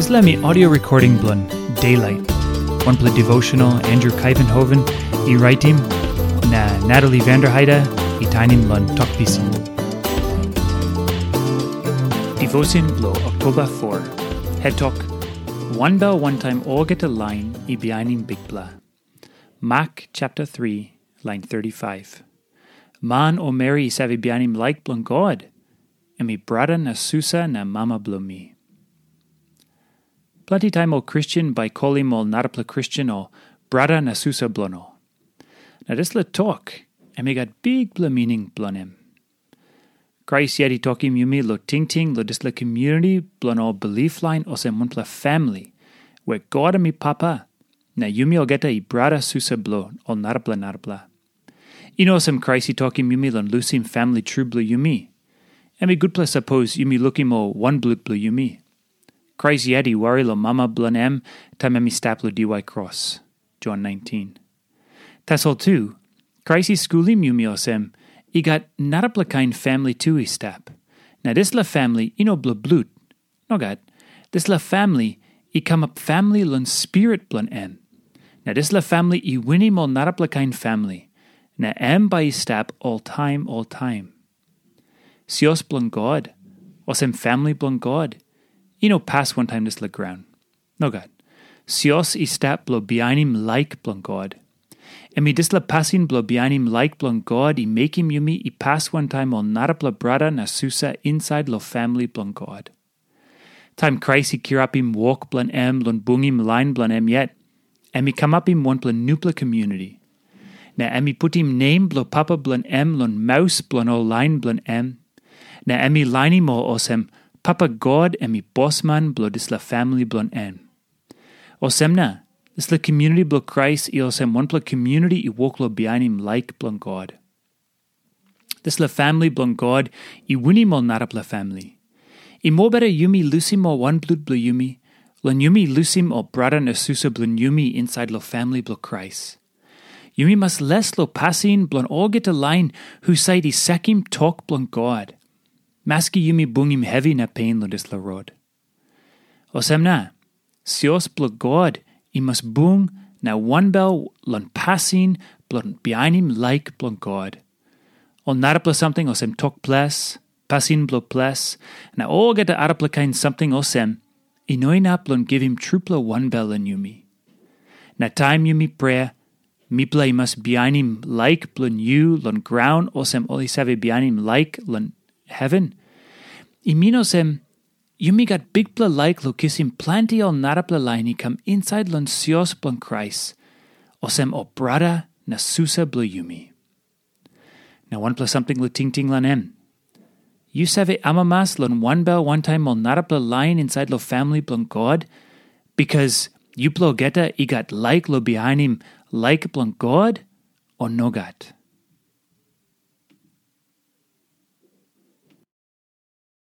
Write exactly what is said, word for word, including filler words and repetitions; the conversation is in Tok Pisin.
Dispela mi audio recording bilong Daylight. Wanpela devotional Andrew Kaivenhoven i raitim, na Natalie Vanderheide i tainim long Tok Pisin. Devotion bilong Oktoba four. Het tok, wanbel wantaim olgeta lain i bihainim Bikpela. Mak chapter three, lain thirty-five. Man o meri i save bihainim laik bilong God, em i brata na susa na mama bilong mi. Planti taim ol Kristen bai kolim ol narapela Kristen ol brata na susa bilong ol. Na dispela tok, em i gat bikpela mining bilong em. Krais yet i tokim yumi long tingting long dispela community bilong ol bilip lain olsem wanpela famili, where God em i papa, na yumi olgeta i brata susa bilong ol narapela narapela. I no olsem Krais i tokim yumi long lusim famili tru bilong yumi. Em i gutpela sapos yumi lukim ol wanblut bilong yumi. Krais yet i wari long mama bilong em taim em i stap long diwai kros. Jon nineteen. Tasol tu, Krais i skulim yumi olsem, i gat narapela kain famili tu i stap. Na dispela famili i no bilong blut. Nogat, dispela famili i kamap famili long spirit bilong em. Na dispela famili i winim ol narapela kain famili, na em bai i stap oltaim oltaim. Sios bilong God, olsem famili bilong God, i no pas wantaim dispela graun. Nogat. Sios i stap bilong bihainim laik bilong God. Em i dispela pasin bilong bihainim laik bilong God i mekim yumi i pas wantaim ol narapela brata na susa insait long famili bilong God. Taim Krais i kirapim wok bilong em long bungim lain bilong em yet, em i kamapim wanpela nupela community. Na em i putim nem bilong papa bilong em long maus bilong ol lain bilong em. Na em i lainim ol olsem, Papa God em i bosman bilong dispela famili bilong en. Olsem na, dispela community bilong Krais i olsem wanpela community i wok long bihainim laik bilong God. Dispela famili bilong God i winim ol narapela famili. I mobeta yumi lusim ol wanblut bilong yumi, long yumi lusim ol brata na susa bilong yumi insait long famili bilong Krais. Yumi mas les long pasin bilong olgeta lain husat i sakim tok bilong God, maski yumi bungim hevi na pen long dispela rot. Olsem na, sios bilong God i mas bung na wanbel long pasin bilong bihainim laik bilong God. Ol narapela samting olsem tok ples, pasin bilong ples, na olgeta arapela kain samting olsem, i no inap long givim trupela wanbel long yumi. Na taim yumi prea, mipela i mas bihainim laik bilong yu long graun olsem ol i save bihainim laik long heven. I min olsem, yumi gat bikpela laik long kisim planti ol narapela lain i kam insait long sios bilong Krais, olsem ol brata na susa bilong yumi. Na wanpela samting long tingting long em. Yu save amamas long wanbel wantaim ol narapela lain insait long famili bilong God, bikas yupela olgeta i gat laik long bihainim laik bilong God, o nogat?